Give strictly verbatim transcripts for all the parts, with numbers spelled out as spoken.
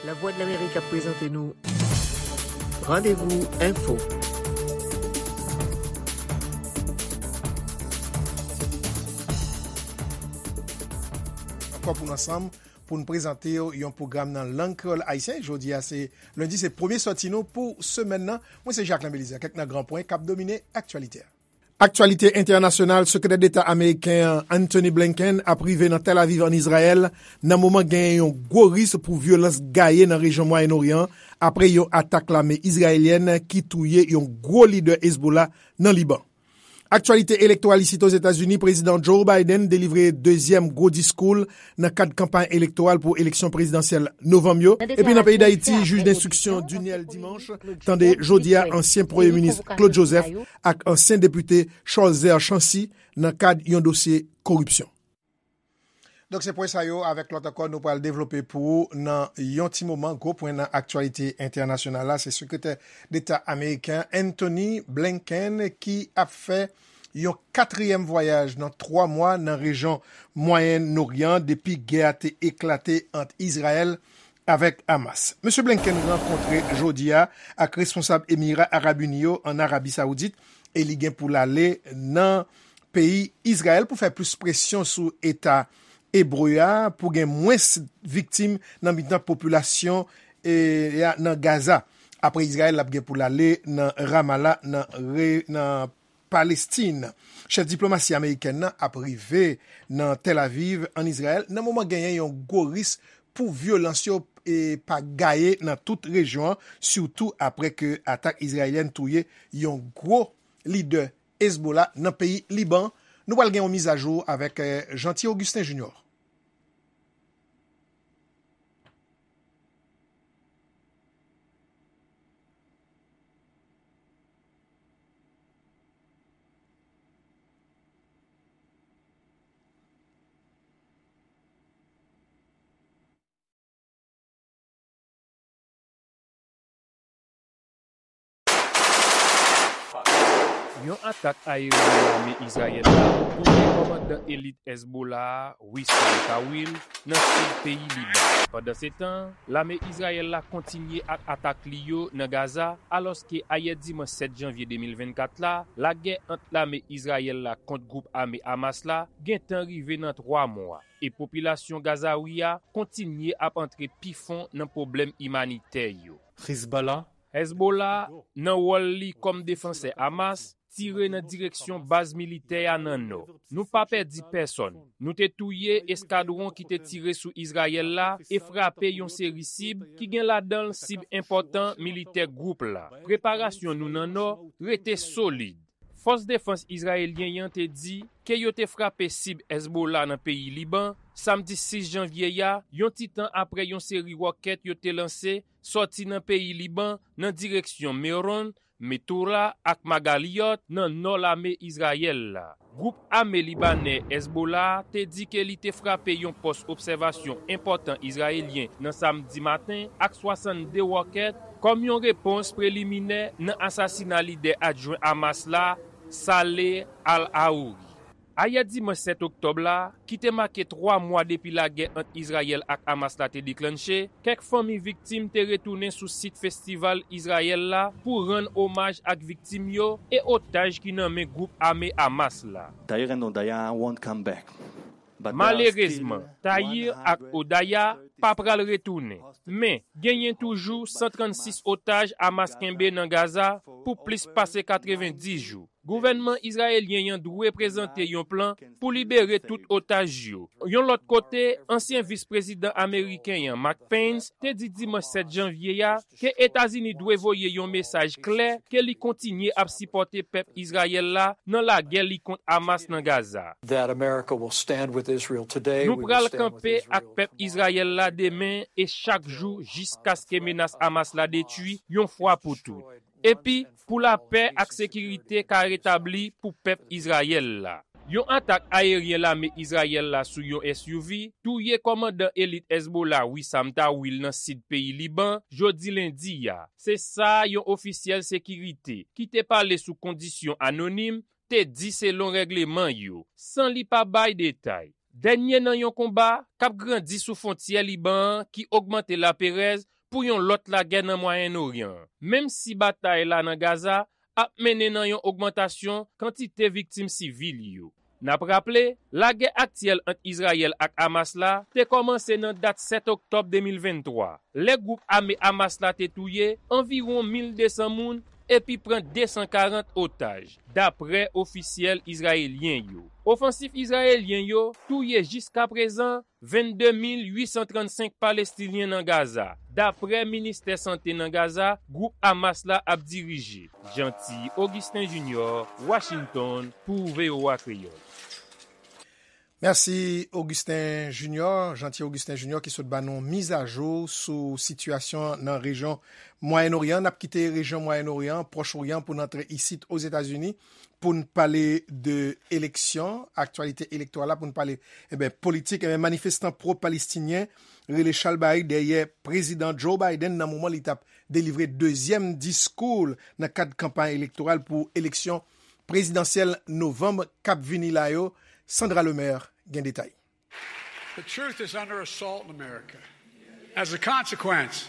Lavwadlamerik ap prezante nou Randevou Enfo. Ankò pou n ansanm, pou n prezante w yon pwogram nan lang kreyòl ayisyen. Jodi a se lendi, se premye sòti nou pou semèn nan. Mwen se Jacquelin Belizaire. Kèk nan gran pwen k ap domine aktyalite a. Aktyalite entènasyonal, Sekretè Deta ameriken an, Antony Blinken, ap rive nan Tel Aviv, ann Izrayèl, nan moman genyen yon gwo risk pou vyolans gaye nan rejyon Mwayen Oryan an, apre yon atak lame izrayelyèn ki touye yon gwo lidè Hezbollah nan Liban. Aktyalite elektoral isit Ozetazini, Prezidan Joe Biden delivre dezyèm gwo diskou l nan kad kanpay elektoral pou eleksyon prezidansyèl novanm yo. Epi nan peyi Dayiti, jij denstriksyon Duniel Dimanche tande jodi a ansyen premye minis Claude Joseph ak ansyen depite Cholzer Chancy nan kad yon dosye koripsyon. Donk, se pwen sa yo avèk lòt ankò nou pral devlope pou ou nan yon ti moman. Gwo pwen nan aktyalite entènasyonal la, se Sekretè Deta ameriken Antony Blinken ki ap fè yon katriyèm vwayaj nan twa mwa nan rejyon Mwayen Oryan depi gè a te eklate ant Izrayèl avèk Hamas. Mesye Blinken rankontre jodi a ak responsab Emira Arab Ini yo ann Arabi Sawoudit e li gen pou l ale nan peyi Izrayèl pou fè plis presyon sou Eta ebre a pou gen mwens viktim nan mitan popilasyon e, a nan Gaza. Apre Izrayèl, l ap gen pou l ale nan Ramallah, nan, re, nan Palestin. Chèf diplomasi amerikèn nan ap rive nan Tel Aviv, ann Izrayèl, nan moman genyen yon gwo risk pou vyolans yo e pa gaye nan tout rejyon an, sitou apre ke atak izrayelyèn touye yon gwo lidè Hezbollah nan peyi Liban. Nou pral gen yon mizajou avèk, eh, Jeanty Augustin Junior. Yon atak ayeryen lame Izrayèl la touye kòmandan elit Hezbollah a, Wissam Tawil, nan sid peyi Liban. Pandansetan, lame Izrayèl la kontinye ak atak li yo nan Gaza, alòske ayè dimanch sèt janvye de mil vennkat la, lagè ant lame Izrayèl la kont gwoup ame Hamas la gentan rive nan twa mwa, e popilasyon Gazawi a kontinye ap antre pi fon nan pwoblèm imanitè yo. Hezbollah, Hezbollah, nan wòl li kòm defansè Hamas, tire nan direksyon baz militè a nan nò. Nou pa pèdi pèsonn. Nou te touye eskadwon ki te tire sou Izrayèl la e frape yon seri sib ki gen ladan l sib enpòtan militè gwoup la. Preparasyon nou nan nò rete solid. Fòs defans izrayelyen an te di ke yo te frape sib Hezbollah nan peyi Liban, samdi sis janvye a, yon ti tan apre yon seri wòkèt yo te lanse sòti nan peyi Liban nan direksyon Meron, Metura ak Magaliyot nan nò lame Izrayèl la. Gwoup ame libanè Hezbollah te di ke li te frape yon pòs obsèvasyon enpòtan izrayelyen nan samdi maten ak swasannde wòkèt kòm yon repons preliminè nan asasina lidè adjwen Hamas la, Saleh al-Aouri. Ayè dimanch sèt oktòb la, ki te make twa mwa depi lagè ant Izrayèl ak Hamas la te deklanche, kèk fanmi viktim te retounen sou sit festival Izrayèl la pou rann omaj ak viktim yo e otaj ki nan men gwoup ame Hamas la. Tahir and Odaya won't come back. But there are Malerezman, still Tahir ak Odaya pa pral retounen. Men, genyen toujou san trannsis otaj Hamas kenbe nan Gaza pou plis pase katrevenndis jou. Gouvènman izrayelyen an dwe prezante yon plan pou libere tout otaj yo. Yon lòt kote, ansyen vis prezidan ameriken an, Mike Pence, te di dimanch sèt janvye a ke Etazini dwe voye yon mesaj klè ke li kontinye ap sipòte pèp Izrayèl la nan lagè li kont Hamas nan Gaza. That America will stand with Israel today. Nou pral kanpe ak pèp Izrayèl la demen e chak jou jiskaske menas Hamas la detwi yon fwa pou tout. Epi, pou lapè ak sekirite ka retabli pou pèp Izrayèl la. Yon atak ayeryen lame Izrayèl la sou yon S U V touye kòmandan elit Hezbollah Wissam Tawil nan sid peyi Liban jodi lendi a. Se sa yon ofisyèl sekirite ki te pale sou kondisyon anonim te di selon règleman yo, san li pa bay detay. Dènye nan yon konba k ap grandi sou fwontyè Liban an ki ogmante laperèz pou yon lòt lagè nan Mwayen Oryan an. Menm si batay la nan Gaza ap mennen nan yon ogmantasyon kantite viktim sivil yo. N ap raple, lagè aktyèl ant Izrayèl ak Hamas la te kòmanse nan dat sèt oktòb de mil venntwa, lè gwoup ame Hamas la te touye anviwon mil de san moun epi pran de san karant otaj, dapre ofisyèl izrayelyen yo. Ofansif izrayelyen yo touye jiskaprezan vennde mil uit san trannsenk Palestinyen nan Gaza, dapre ministè sante nan Gaza, gwoup Hamas la ap dirije. Jeanty Augustin Junior, Washington, pou V O A Kreyòl. Mèsi Augustin Junior, Jeanty Augustin Junior ki sot ba nou mizajou sou sitiyasyon nan rejyon Mwayen Oryan. N ap kite rejyon Mwayen Oryan, Pwòch Oryan pou n antre isit Ozetazini pou n pale de eleksyon, aktyalite elektoral la, pou n pale, enben, politik. Enben, manifestan pwo-palestinyen rele chalbari dèyè Prezidan Joe Biden nan moman li t ap delivre dezyèm diskou l nan kad kanpay elektoral pou eleksyon prezidansyèl novanm k ap vini la yo. Sandra Lemaire gen detay. The truth is under assault in America. As a consequence,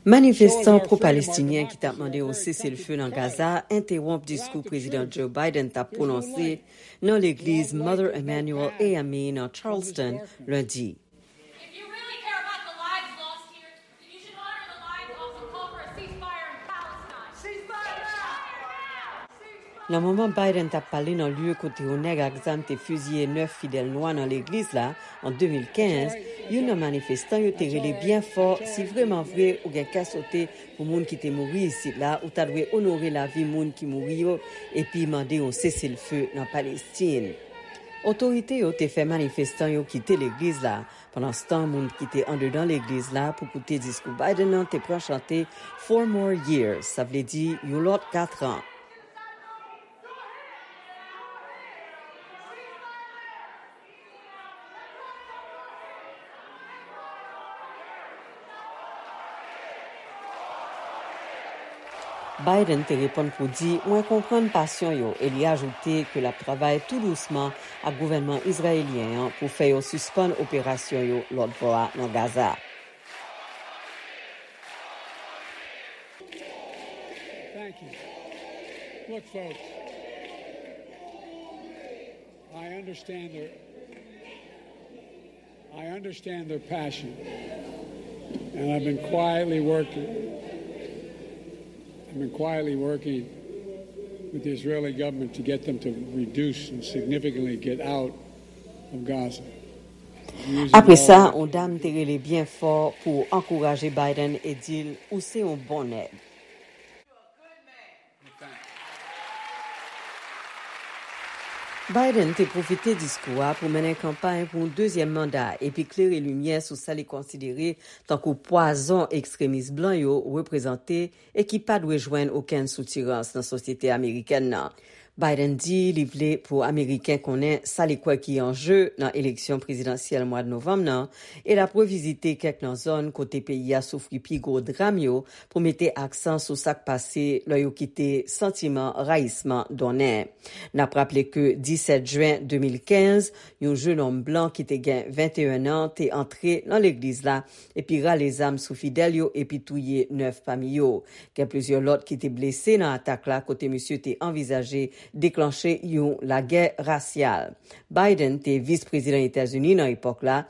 Manifestan pwo-palestinyen ki t ap mande yon seselfe nan Gaza entewonp diskou Prezidan Joe Biden t ap pwononse nan legliz Mother Emanuel A M E nan Charleston lendi. Nan moman Biden t ap pale nan lye kote yon nèg ak zam te fiziye nèf fidèl nwa nan legliz la an de mil kenz, youn nan manifestan yo te rele byen fò si vrèmanvre ou gen kè sote pou moun ki te mouri isit la, ou ta dwe onore lavi moun ki mouri yo epi mande yon seselfe nan Palestin. Otorite yo te fè manifestan yo kite legliz la. Pandanstan, moun ki te andedan legliz la pou koute diskou Biden nan te pran chante Four More Years, sa vle di yon lòt katran. Biden te reponn pou di, mwen konprann pasyon yo, e li ajoute ke l ap travay tou dousman ak gouvènman izrayelyen an pou fè yo sispann operasyon yo lòt bò a nan Gaza. Thank you. Look, folks, I understand their, I understand their passion. And I've been quietly working, I've been quietly working with the Israeli government to get them to reduce and significantly get out of Gaza. Apre sa, yon dam te rele byen fò pou ankouraje Biden e di l, ou se yon bon nèg. Biden te pwofite diskou a pou mennen kanpay pou yon dezyèm manda epi klere limyè sou sa li konsidere tankou pwazon ekstremis blan yo reprezante e ki pa dwe jwenn okenn soutirans nan sosyete amerikèn nan. Biden di li vle pou Ameriken konnen sa li kwè ki an je nan eleksyon prezidansyèl mwa novanm nan e l ap revizite kèk nan zòn kote peyi a soufri pi gwo dram yo pou mete aksan sou sa k pase lè yo kite santiman rayisman donnen. N ap raple ke disèt jen de mil kenz, yon jenòm blan ki te gen venteyen an te antre nan legliz la epi rale zam sou fidèl yo epi touye nèf pami yo. Gen plizyè lòt ki te blese nan atak la kote misye te anvizaje deklanche yon lagè rasyal. Biden te vis prezidan Etazini nan epòk la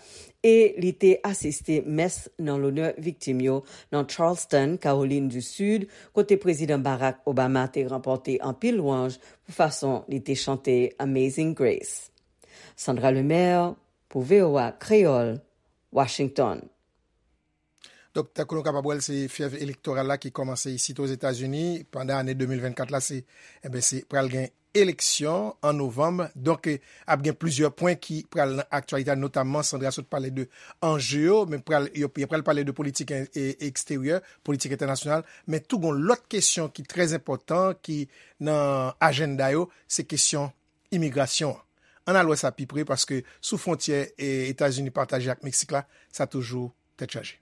e li te asiste mès nan lonè viktim yo nan Charleston, Kawolin di Sid, kote Prezidan Barack Obama te ranpòte anpil lwanj pou fason li te chante Amazing Grace. Sandra Lemaire, pou V O A Kreyòl, Washington. Donk, tankou nou kapab wè l, se fyèv elektoral la ki kòmanse isit Ozetazini pandan ane de mil vennkat la, se, enben, se pral gen eleksyon an novanm. Donk, ap gen plizyè pwen ki pral nan aktyalite a, notamman Sandra sot pale de anje yo, men pral, yo, yo pral pale de politik eksteryè, politik entènasyonal, men tou gon lòt kesyon ki trè enpòtan ki nan ajanda yo, se kesyon imigrasyon an. Ann al wè sa pi pre, paske sou fwontyè Etazini pataje ak Meksik la, sa toujou tèt chaje.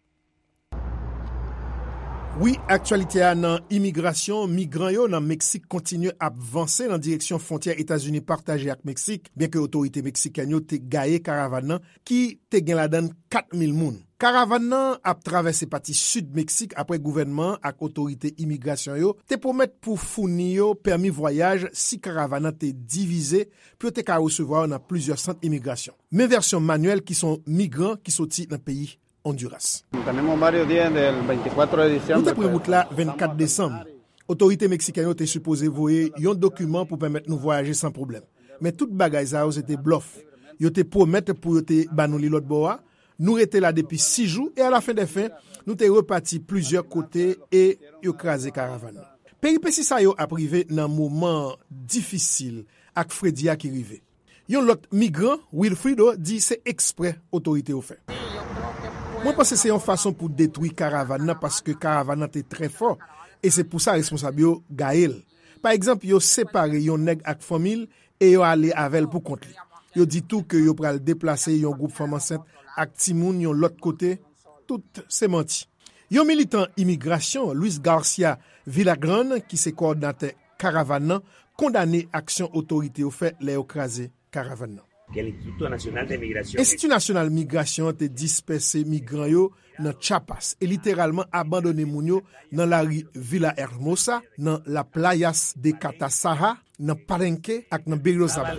Wi, aktyalite a nan imigrasyon, migran yo nan Meksik kontinye ap vanse nan direksyon fwontyè Etazini pataje ak Meksik, byenke otorite meksikèn yo te gaye karavàn nan ki te gen ladan l kat mil moun. Karavàn nan ap travèse pati sid Meksik apre gouvènman an ak otorite imigrasyon yo te pwomèt pou founi yo pèmi vwayaj si karavàn nan te divize pou yo te ka resevwa yo nan plizyè sant imigrasyon. Men vèsyon Manuel ki se yon migran ki soti nan peyi Honduras. Tenemos varios días del veinticuatro de diciembre. Nou te pran wout la vennkat desanm. Otorite meksikèn yo te sipoze voye yon dokiman pou pèmèt nou vwayaje san pwoblèm. Men tout bagay sa yo se te blòf. Yo te pwomèt pou yo te ban nou li lòt bò a. Nou rete la depi sis jou e alafen dè fen, nou te repati plizyè kote e yo kraze karavàn nan. Peripesi sa yo ap rive nan moman difisil ak fredi a ki rive. Yon lòt migran, Wilfrido, di se eksprè otorite yo fè. Mwen panse se yon fason pou detwi karavàn nan paske karavàn nan te trè fò e se pou sa responsab yo gaye l. Pa egzanp, yo separe yon nèg ak fanmi l e yo ale avè l pou kont li. Yo di tou ke yo pral deplase yon gwoup fanm ansent ak timoun yon lòt kote. Tout se manti. Yon militan imigrasyon, Luis Garcia Villagran, ki se kowòdinatè karavàn nan, kondane aksyon otorite yo fè lè yo kraze karavàn nan. Enstiti Nasyonal Migrasyon an te dispèse migran yo nan Chiapas e literalman abandone moun yo nan lari Villa Hermosa, nan La Playas de Catasaja, nan Palenque ak nan Berriozábal.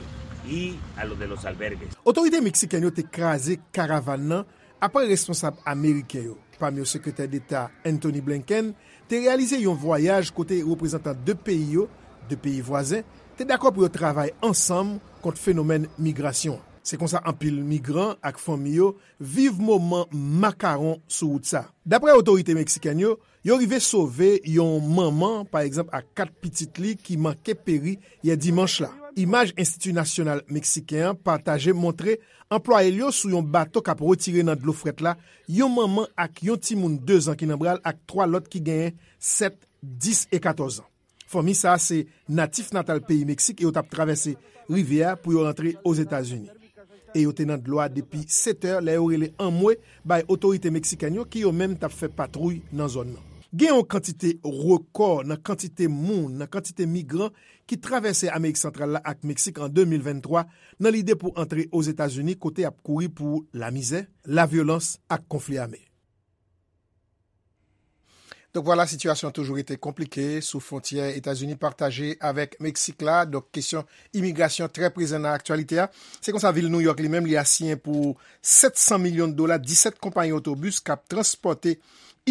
Otorite meksikèn yo te kraze karavàn nan apre responsab ameriken yo, pami yo Sekretè Deta Antony Blinken, te reyalize yon vwayaj kote reprezantan de peyi yo, de peyi vwazen, te dakò pou yo travay ansanm kont fenomèn migrasyon an. Se konsa anpil migran ak fanmi yo viv moman makawon sou wout sa. Dapre otorite meksikèn yo, yo rive sove yon manman, pa egzanp, ak kat pitit li ki manke peri yè dimanch la. Imaj Enstiti Nasyonal Meksiken an pataje montre anplwaye l yo sou yon bato k ap retire nan dlo frèt la yon manman ak yon timoun dezan ki nan bra l ak twa lòt ki genyen sèt, dis e katòz an. Fanmi sa a se natif natal peyi Meksik e yo t ap travèse rivyè a pou yo rantre Ozetazini. E yo te nan dlo a depi sèt è lè yo rele anmwe bay otorite meksikèn yo ki yo menm t ap fè patwouy nan zòn nan. Gen yon kantite rekò nan kantite moun, nan kantite migran ki travèse Amerik Santral la ak Meksik an de mil venntwa nan lide pou antre Ozetazini kote y ap kouri pou lamizè, lavyolans ak konfli ame. Donk vwala, sitiyasyon an toujou rete konplike sou fwontyè Etazini pataje avèk Meksik la. Donk kesyon imigrasyon trè prezan nan aktyalite a. Se konsa vil Nouyòk li menm li asiyen pou sèt san milyon dola disèt konpayi otobis k ap transpòte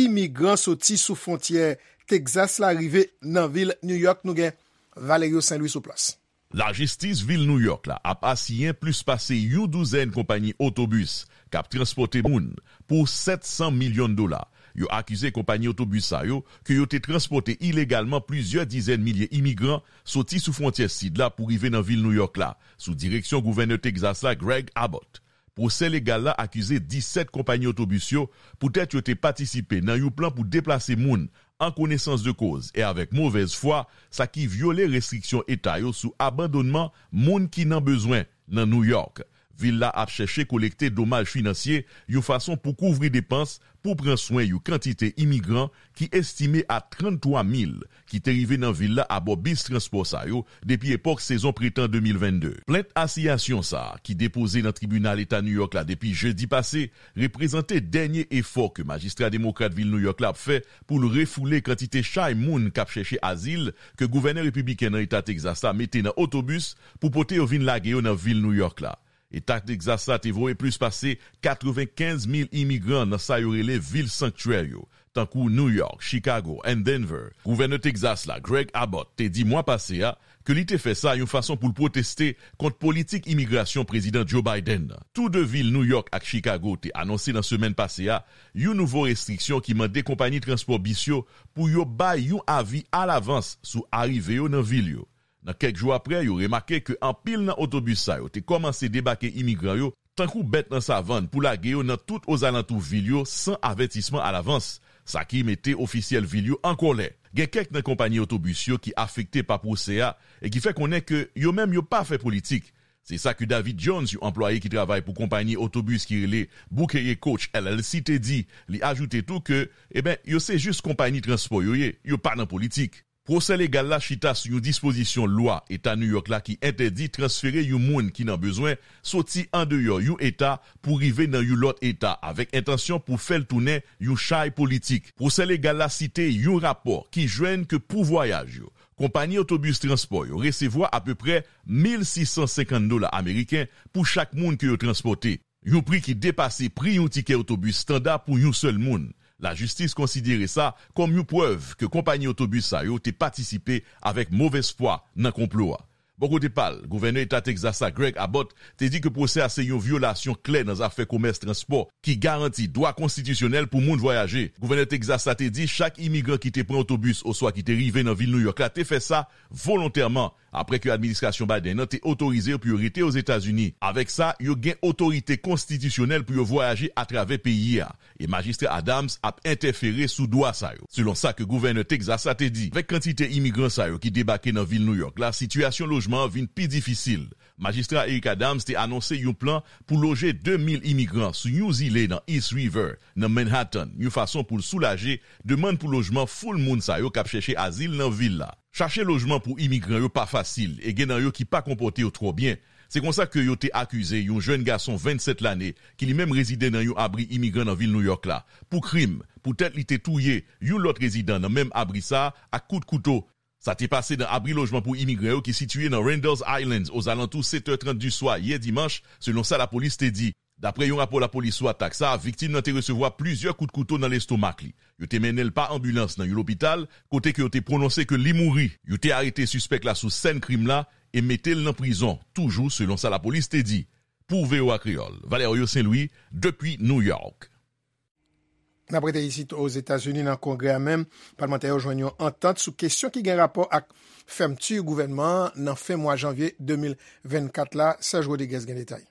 imigran soti sou fwontyè Tegzas la rive nan vil Nouyòk. Nou gen Valerio Saint Louis sou plas. Lajistis vil Nouyòk la ap asiyen plis pase yon douzèn konpayi otobis k ap transpòte moun pou sèt san milyon dola. Yo akize konpayi otobis sa yo ke yo te transpòte ilegalman plizyè dizèn milye imigran soti sou fwontyè sid la pou rive nan vil Nouyòk la, sou direksyon gouvènè Tegzas la, Greg Abbott. Pwosè legal la akize disèt konpayi otobis yo poutèt yo te patisipe nan yon plan pou deplase moun an konesans de koz e avèk movèz fwa, sa ki vyole restriksyon eta yo sou abandonnman moun ki nan bezwen nan Nouyòk. Vil la ap chèche kolekte domaj finansye yon fason pou kouvri depans pou pran swen yon kantite imigran ki estime a tranntwa mil ki te rive nan vil la abò bis transpò sa yo depi epòk sezon pretan de mil vennde. Plent asiyasyon sa a, ki depoze nan tribinal eta Nouyòk la depi jedi pase, reprezante dènye efò ke majistra demokrat vil Nouyòk la ap fè pou l refoule kantite chay moun k ap chèche azil ke gouvènè repibliken nan eta Tegzas la mete nan otobis pou pote yo vin lage yo nan vil Nouyòk la. Eta Tegzas la te voye plis pase katrevenkenz mil imigran nan sa yo rele vil sanktyè yo, tankou Nouyòk, Chikago, and Denver. Gouvènè Tegzas la, Greg Abbott, te di mwa pase a ke li te fè sa yon fason pou l pwoteste kont politik imigrasyon Prezidan Joe Biden nan. Tou de vil Nouyòk ak Chikago te anonse nan semèn pase a yon nouvo restriksyon ki mande konpayi transpò bis yo pou yo bay yon avi alavans sou arive yo nan vil yo. Nan kèk jou apre, yo remake ke anpil nan otobis sa yo te kòmanse debake imigran yo tankou bèt nan savann pou lage yo nan tout ozalantou vil yo san avètisman alavans, sa ki mete ofisyèl vil yo an kòlè. Gen kèk nan konpayi otobis yo ki afekte pa pwosè a e ki fè konnen ke yo menm yo pa fè politik. Se sa ke David Jones, yon anplwaye ki travay pou konpayi otobis ki rele Bouquet Coach L L C, te di. Li ajoute tou ke, eben, yo se jis konpayi transpò yo ye, yo pa nan politik. Pwosè legal la chita sou yon dispozisyon lwa Eta New York la ki entèdi transfere yon moun ki nan bezwen soti andeyò yon eta pou rive nan yon lòt eta avèk entansyon pou fè l tounen yon chay politik. Pwosè legal la site yon rapò ki jwenn ke pou vwayaj yo, konpayi otobis transpò yo resevwa apeprè mil sis san senkant dola ameriken pou chak moun ke yo transpòte. Yon pri ki depase pri yon tikè otobis estanda pou yon sèl moun. Lajistis konsidere sa kòm yon prèv ke konpayi otobis sa yo te patisipe avèk movèz fwa nan konplo a. Bò kote pa l, gouvènè eta Tegzas la, Greg Abbott, te di ke pwosè a se yon vyolasyon klè nan zafè komès transpò ki garanti dwa konstitisyonèl pou moun vwayaje. Gouvènè Tegzas la te di chak imigran ki te pran otobis oswa ki te rive nan vil Nouyòk la te fè sa volontèman, apre ke administrasyon Biden nan te otorize yo pou yo rete Ozetazini. Avèk sa, yo gen otorite konstitisyonèl pou yo vwayaje atravè peyi a, e Majistra Adams ap entèfere sou dwa sa yo, selon sa ke gouvènè Tegzas la te di. Avèk kantite imigran sa yo ki debake nan vil Nouyòk la, sitiyasyon lojman an vin pi difisil. Majistra Eric Adams te anonse yon plan pou loje de mil imigran sou yon zile nan East River, nan Manhattan, yon fason pou l soulaje demann pou lojman foul moun sa yo k ap chèche azil nan vil la. Chache lojman pou imigran yo pa fasil, e gen nan yo ki pa konpòte yo twò byen. Se konsa ke yo te akize yon jèn gason vennsèt lane, ki li menm rezide nan yon abri imigran nan vil Nouyòk la, pou krim, poutèt li te touye yon lòt rezidan nan menm abri sa a ak kout kouto. Sa te pase nan abri lojman pou imigran yo ki sitiye nan Randall's Islands ozalantou sèt è trant di swa yè dimanch, selon sa lapolis te di. Dapre yon rapò lapolis sou atak sa a, viktim nan te resevwa plizyè kout kouto nan lestomak li. Yo te mennen l pa anbilans nan yon lopital, kote ke yo te pwononse ke li mouri. Yo te arete sispèk la sou sèn krim la e mete l nan prizon, toujou selon sa lapolis te di. Pou V O A Kreyòl, Valerio Saint-Louis, depi New York. N ap rete isit Ozetazini nan Kongrè a menm, palmantè yo jwenn yon antant sou kesyon ki gen rapò ak fèmti gouvènman an nan fen mwa janvye de mil vennkat la. Serge Rodriguez gen detay.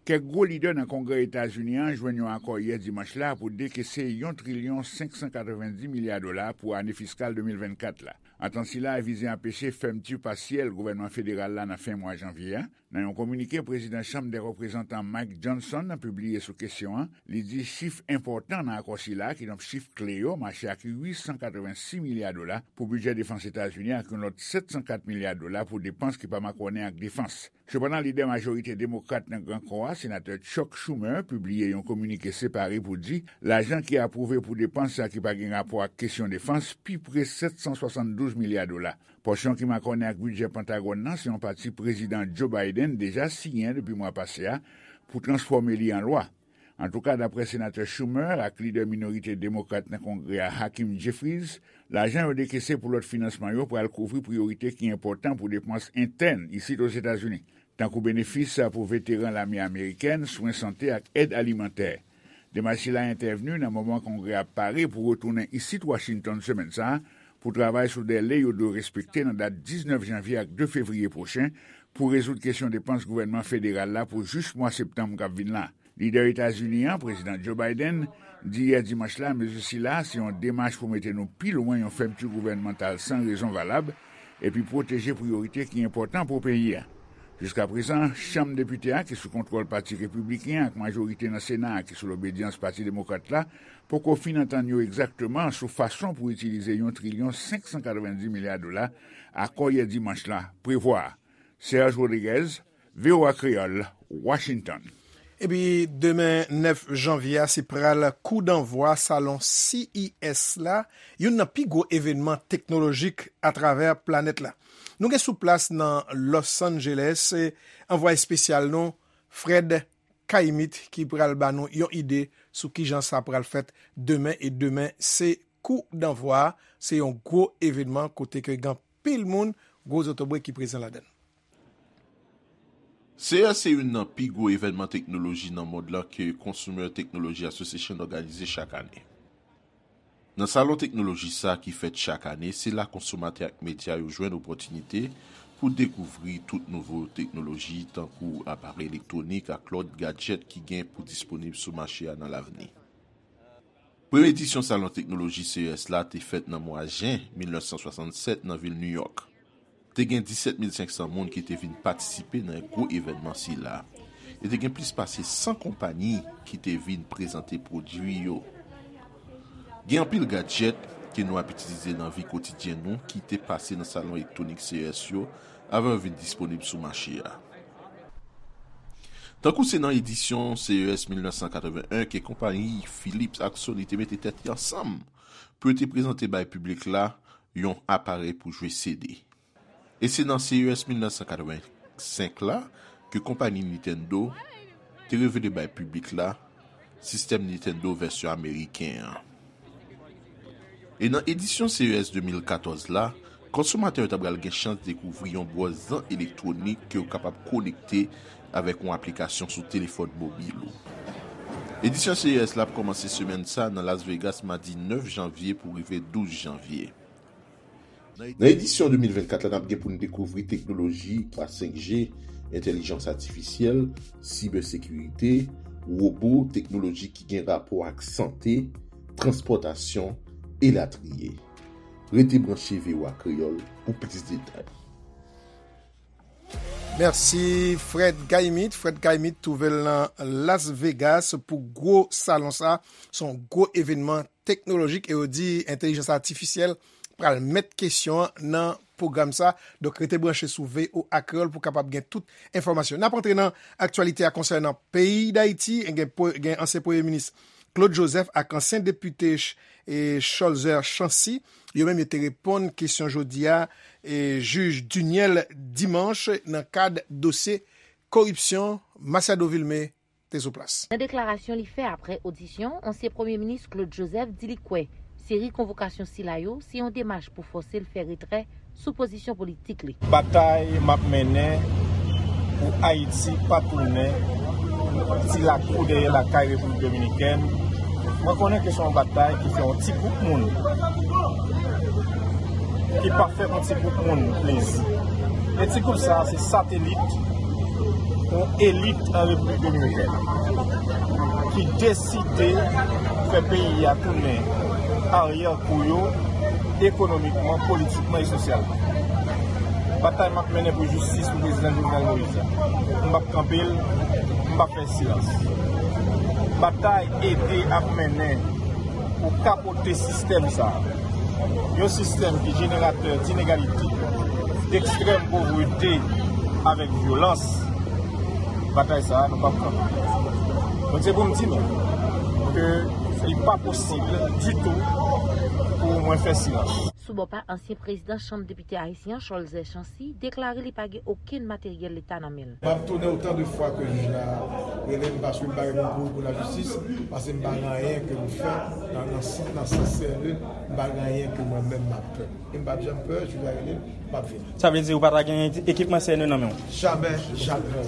Kèk gwo lidè nan Kongrè Etazini an jwenn yon akò yè dimanch la pou dekese yon trilyon senk san katrevenndis milya dola pou ane fiskal de mil vennkat la. Antant sila a vize anpeche fèmti pasyèl gouvènman federal la nan fen mwa janvye a. Nan yon kominike, prezidan Chanm dè Reprezantan Mike Johnson pibliye sou kesyon an, li di chif enpòtan nan akò sila, kidonk chif kle yo, mache ak uit san katrevensis milya dola pou bidjè defans Etazini ak yon lòt sèt san kat milya dola pou depans ki pa makònen ak defans. Sepandan, lidè majorite demokrat nan Gran Kò a, senatè Chuck Schumer, pibliye yon kominike separe pou di lajan ki apwouve pou depans sa ki pa gen rapò ak kesyon defans pi pre sèt san swasanndouz milya dola. Pòsyon ki makònen ak bidjè Pentagòn nan se yon pati Prezidan Joe Biden deja siyen depi mwa pase a pou transfòme li an lwa. Antouka, dapre Senatè Schumer ak lidè minorite demokrat nan Kongrè a, Hakeem Jeffries, lajan yo dekese pou lòt finansman yo pral kouvri priyorite ki enpòtan pou depans entèn isit Ozetazini, tankou benefis pou veteran lame amerikèn, swen sante ak èd alimantè. Demach sila entèvni nan moman Kongrè a pare pou retounen isit Washington semèn sa a pou travay sou dè le yo dwe respekte nan dat diznèf janvye ak de fevriye pwochen pou rezoud kesyon depans gouvènman federal la pou jis mwa septanm k ap vin la. Lidè Etazini an, Prezidan Joe Biden, di yè dimanch la mezi sila se yon demach pou mete nou pi lwen yon fèmti gouvènmantal san rezon valab epi pwoteje priyorite ki enpòtan pou peyi a. Jiskaprezan, Chanm Depite a, ki sou kontwòl Pati Repibliken an, ak majorite nan Sena a, ki sou lobedyans Pati Demokrat la, poko fin antann yo egzakteman sou fason pou itilize yon trilyon senk san katrevenndis milya dola akò yè dimanch la prevwa. Serge Rodriguez, V O A Kreyòl, Washington. Epi demen nèf janvye a, se pral kou danvwa salon C E S la, youn nan pi gwo evènman teknolojik atravè planèt la. Nou gen sou plas nan Los Angeles, eh, anvwaye espesyal nou, Fred Kaimit, ki pral ba nou yon ide sou kijan sa pral fèt demen. E demen, se kou danvwa, se yon gwo evènman kote ke gen anpil moun, gwo zotobre ki prezan ladan l. C E S se youn nan pi gwo evènman teknoloji nan mond lan ke Consumer Technology Association òganize chak ane. Nan salon teknoloji sa a ki fèt chak ane, se la konsomatè ak medya yo jwenn opòtinite pou dekouvri tout nouvo teknoloji, tankou aparèy elektwonik ak lòt gadjèt ki gen pou disponib sou mache a nan lavni. Premye edisyon Salon Teknoloji C E S la te fèt nan mwa jen mil nèf san swasannsèt nan vil New York. Te gen disèt mil senk san moun ki te vin patisipe nan gwo evènman sila. E te gen plis pase san konpayi ki te vin prezante pwodui yo. Gen anpil gadjèt ke nou ap itilize nan vi kotidyen nou ki te pase nan salon elektwonik C E S yo avan yo vin disponib sou mache a. Tankou se nan edisyon C E S mil nèf san katreven en ke konpayi Philips ak Sony te mete tèt yo ansanm pou yo te prezante bay piblik la yon aparèy pou jwe C D. E se nan C E S mil nèf san katreven senk la ke konpayi Nintendo te revele bay piblik la sistèm Nintendo vèsyon ameriken an. E nan edisyon C E S de mil katòz la, konsomatè yo ta pral gen chans dekouvri yon bwòz zan elektwonik ke w kapab konekte avèk yon aplikasyon sou telefòn mobil ou. Edisyon C E S la ap kòmanse semèn sa nan Las Vegas madi nèf janvye pou rive douz janvye. Nan edisyon de mil vennkat la, n ap gen pou n dekouvri teknoloji twa senk G, entèlijans atifisyèl, sibèsekirite, wobo, teknoloji ki gen rapò ak sante, transpòtasyon, elatriye. Rete branche V O A Kreyòl pou plis detay. Mèsi Fred Gaimit. Fred Gaimit twouve l nan Las Vegas pou gwo salon sa. Se yon gwo evènman teknolojik e yo di entèlijans atifisyèl pral met kesyon an nan pwogram sa. Donk, rete branche sou V O A Kreyòl pou kapab gen tout enfòmasyon. N ap antre nan aktyalite a konsènan peyi Dayiti. Gen, gen ansyen premye minis Claude Joseph ak ansyen depite Cholzer Chancy. Yo menm yo te reponn kesyon jodi a e, jij Duniel Dimanche nan kad dosye koripsyon. Masiado Vilmé te sou plas. Nan deklarasyon li fè apre odisyon, ansyen premye minis Claude Joseph di li kwè seri konvokasyon sila yo se yon demach pou fòse l fè retrè sou pozisyon politik li. Batay m ap mennen pou Ayiti pa tounen ti lakou dèyè lakay Repiblik Dominikèn, mwen konnen ke se yon batay ki fè yon ti gwoup moun ki pa fè yon ti gwoup moun plezi. E ti gwoup sa a se satelit yon elit an Repiblik Dominikèn ki deside fè peyi a tounen aryè kou yo ekonomikman, politikman e sosyalman. Batay m ap mennen pou jistis pou prezidan Jovenel Moïse la, m p ap kanpe l, m p ap fè silans. Batay ede ap mennen pou kapote sistèm sa a. Yon sistèm ki jeneratè dinegalite, dekstrèm povrete avèk vyolans. Batay sa a, nou p ap kanpe. Donk, se pou m di nou ke li pa posib ditou pou mwen fè silans. Sou bò pa ansyen prezidan Chanm Depite ayisyen an, Cholzer Chancy, deklare li pa gen okenn materyèl Leta nan men l. M ap tounen otan de fwa ke jij la rele m, paske m pa gen moun kouri pou lajistis, paske m pa gen anyen ke m fè nan, nan, nan sans serye, m pa gen anyen ke mwen menm m ap pè. E m p ap janm pè, jij la rele m, m ap vini. Sa vle di ou pa ta gen ekipman C N E nan men w? Jamè, jamè.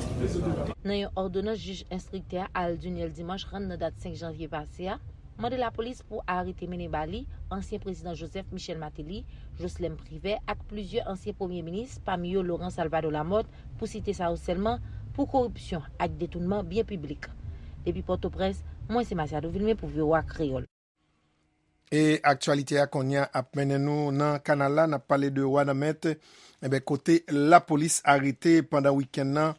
Nan yon òdonans jij enstriktè a, Alduniel Dimanche, rann nan dat senk janvye pase a, mande lapolis pou arete mennen ba li ansyen prezidan Joseph Michel Martelly, Joslèm Privè ak plizyè ansyen premye minis, pami yo Laurent Salvador Lamothe, pou site sa yo sèlman, pou koripsyon ak detounman byen piblik. Depi Pòtoprens, mwen se Masiado Vilmé pou V O A Kreyòl. E aktyalite a kounye a ap mennen nou nan kanal la, n ap pale de Wanament, enben, kote lapolis arete pandan wikenn nan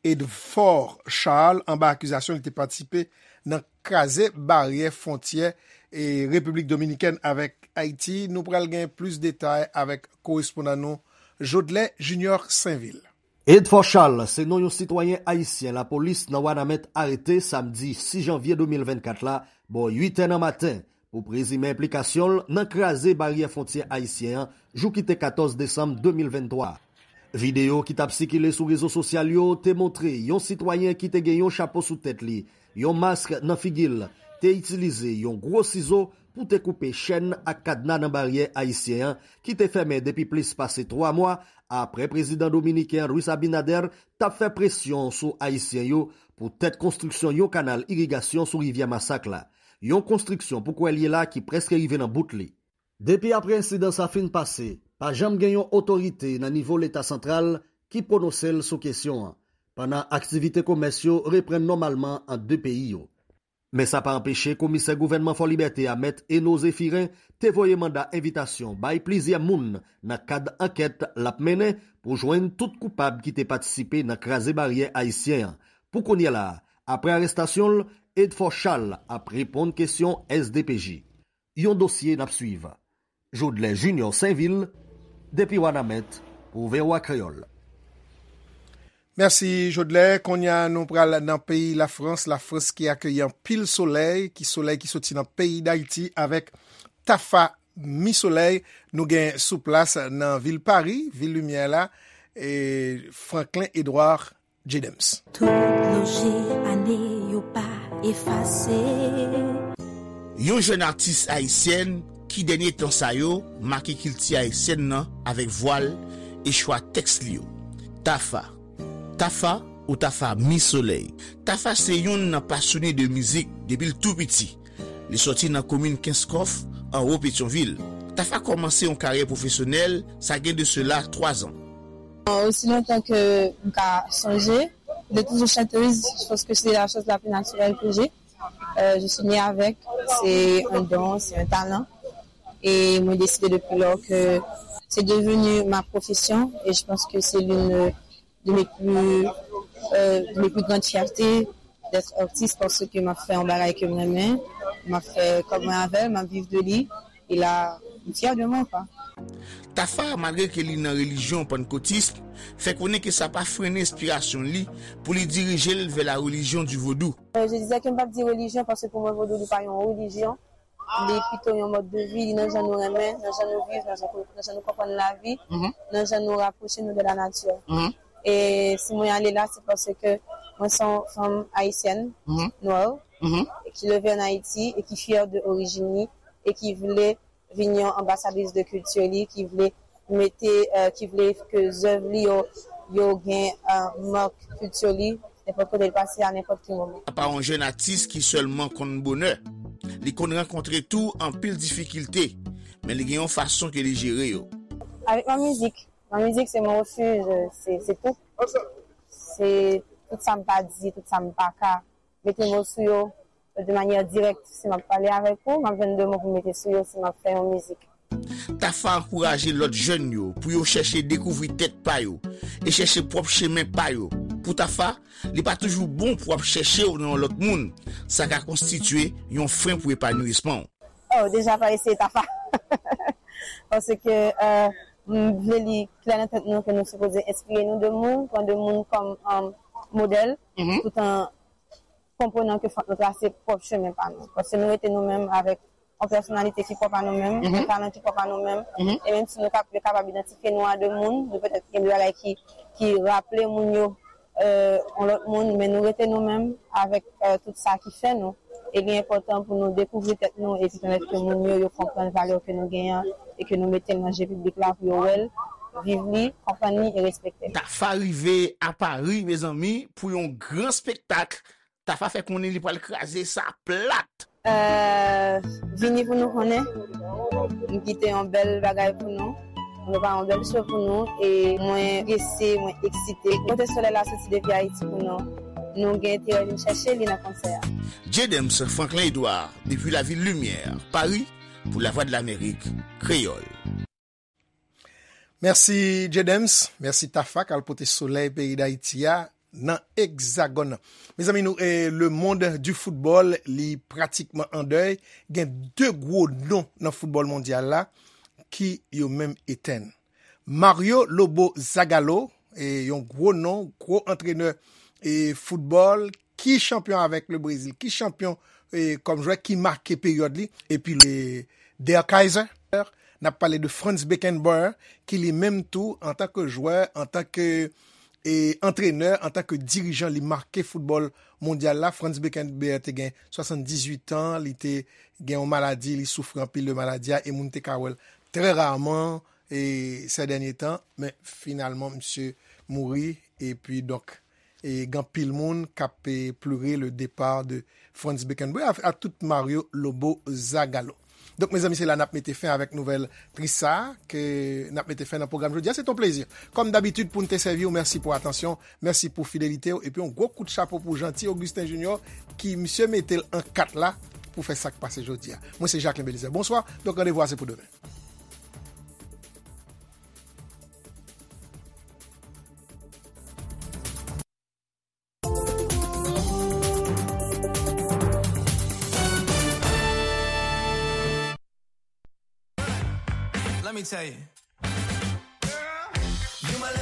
Edfor Charles anba akizasyon li te patisipe nan kraze baryè fwontyè e Repiblik Dominikèn avèk Ayiti. Nou pral gen plis detay avèk korespondan nou Jodlè Junior Sainvil. Edfor Charles se non yon sitwayen ayisyen lapolis nan Wanament arete samdi sis janvye de mil vennkat la bò uit è nan maten pou prezime enplikasyon l nan kraze baryè fwontyè ayisyen an jou ki te katòz desanm de mil venntwa a. Videyo ki t ap sikile sou rezo sosyal yo te montre yon sitwayen ki te gen yon chapo sou tèt li, yon mask nan figi l, te itilize yon gwo sizo pou te koupe chèn ak kadna nan baryè ayisyen an ki te fèmen depi plis pase twa mwa apre prezidan dominiken Luis Abinader t ap fè presyon sou Ayisyen yo pou tèt konstriksyon yon kanal irigasyon sou rivyè Masak la, yon konstriksyon pou kwè l ye la ki prèske rive nan bout li. Depi apre ensidan sa fin pase, pa janm gen yon otorite nan nivo Leta santral ki pwononse l sou kesyon an, pandan aktivite komès yo reprann nòmalman ant de peyi yo. Men sa pa anpeche komisè gouvènman Fòlibète a, Mèt Eno Zéphirin, te voye manda envitasyon bay plizyè moun nan kad ankèt l ap mennen pou jwenn tout koupab ki te patisipe nan kraze baryè ayisyen an. Pou kounye la a, apre arestasyon l, Edfort Charles ap reponn kesyon S D P J. Yon dosye n ap swiv. Jodlè Junior Sainvil, depi Wanament, pou V O A Kreyòl. Mèsi, Jodlè. Kounye a, nou pral nan peyi Lafrans. Lafrans ki akeyi anpil solèy, ki solèy ki soti nan peyi Dayiti avèk Tafa Mi Solèy. Nou gen sou plas nan vil Pari, vil limyè la, e Franklin Edouard Jedems. Tout lonje ane yo pa efase. Yon jèn atis ayisyèn ki dènye tan sa yo make kilti ayisyèn nan avèk vwa l e chwa tèks li yo. Tafa. Tafa ou Tafa Mi Solèy. Tafa se yonn nan pasyone de mizik depi l tou piti. Li sòti nan komin Kenskòf, anwo Petyonvil. Tafa kòmanse yon karyè pwofesyonèl, sa gen de sela twa zan. Aussi longtemps que m ka sonje, de toujours chanteuse, je pense que c'est la chose la plus naturelle que j'ai. Euh, je suis née avec, c'est un don, c'est un talent. Et mwen décidé depuis lors que c'est devenu ma profession et je pense que c'est l'une de mes plus, euh, de mes plus grandes fiertés d'être artiste parce que m ap fè yon bagay ke m renmen, m ap fè kòb mwen avè l, m ap viv de li. E la, m fyè de mwen, kwa. Tafa, malgre ke li nan relijyon pannkotis, fè konnen ke sa pa frennen enspirasyon li pou li dirije l vè la religion du vodou. Euh, je disais que m p ap di religion parce que pour moi vodou li pa yon religion, li pito yon mode de vie, li nan jan nou renmen, nan jan nou viv, nan jan, nan jan nou konprann lavi, nan jan nou rapwoche nou de la nature. E si mwen ale la, se paske mwen se yon fanm ayisyèn, nwè, ki leve an Ayiti e ki fyè de orijin li e ki vle vin yon anbasadris de kilti li, ki vle mete, euh, ki vle ke zèv li yo, yo gen, euh, mak kilti li, nenpòt kote l pase a nenpòt ki moman. Apa yon jèn atis ki sèlman konn bonè. Li konn rankontre tou anpil difikilte, men li gen yon fason ke li jere yo. Avec ma musique. Ma musique, c'est mon refuge, c'est, c'est tout. C'est tout sa m pa di, tout sa m pa ka mete mo sou yo de manyè dirèk. Si m ap pale avèk ou, m ap jwenn de mo pou m mete sou yo si m ap fè yon mizik. Tafa ankouraje lòt jèn yo pou yo chèche dekouvri tèt pa yo e chèche pwòp chemen pa yo. Pou Tafa, li pa toujou bon pou w ap chèche w nan yon lòt moun. Sa ka konstitye yon fren pou epanouisman w. Oh, deja pa eseye Tafa. Paske, euh, m vle li klè nan tèt nou ke nou sipoze enspire nou de moun, pran de moun kòm, euh, modèl, tout an konprenan ke fòk nou trase pwòp chemen pa nou. Paske nou rete nou menm avèk yon pèsonalite ki pwòp a nou menm, yon talan ki pwòp a nou menm. E menm si nou kap-, yo kapab idantifye nou a de moun, nou petèt gen de bagay ki, ki raple moun yo, euh, yon lòt moun, men nou rete nou menm avèk, euh, tout sa ki fè nou. E li enpòtan pou nou dekouvri tèt nou epi pèmèt ke moun yo, yo konprann valè ke nou genyen e ke nou mete l nan je piblik la pou yo wè l, viv li, konprann li e respekte l. Tafa rive a Pari, mezanmi, pou yon gran spektak. Tafa fè konnen li pral kraze sa plat. Euh, vini pou nou konnen. M kite yon bèl bagay pou nou. M prepare yon bèl show pou nou. E mwen prese, mwen eksite. Kote solèy la soti depi Ayiti pou nou. Nou gen enterè vin chèche li nan konsè a. Jedems Franklin Edouard, depi lavil Limyè, Pari, pou Lavwadlamerik Kreyòl. Mèsi, Jedems. Mèsi, Tafa, k al pote solèy peyi Dayiti a nan Egzagòn nan. Mezanmi, nou, eh, le monde du football, li pratikman an dèy. Gen de gwo non nan foutbòl mondyal la ki yo menm etenn. Mario Lobo Zagallo, eh, yon gwo non, gwo antrenè, eh, foutbòl, ki chanpyon avèk le Brezil, ki chanpyon, eh, kòm jwè, ki make peryòd li, epi le Der Kaiser, n ap pale de Franz Beckenbauer, ki li menm tou, antanke jwè, antanke, eh, antrenè, antanke dirijan, li make foutbòl mondyal la. Franz Beckenbauer te gen swasanndizuit an, li te gen yon maladi, li soufri anpil de maladi a, e moun te ka wè l trè raman, e, sè dènye tan, men finalman, misye mouri, epi donk, e gen anpil moun k ap, e, plere le départ de Franz Beckenbauer, a, a tout Mario Lobo Zagallo. Donk, mezanmi, se la n ap mete fen avèk nouvèl tris sa a ke n ap mete fen nan pwogram jodi a. Se t on plezi, kòm dabitid, pou n te sèvi w. Mèsi pou atansyon, mèsi pou fidelite w, epi yon gwo kout chapo pou Jeanty Augustin Junior, ki misye mete l an kat la pou fè sa k pase jodi a. Mwen se Jacquelin Belizaire. Bonswa, donk randevou a se pou demen. Let me tell you.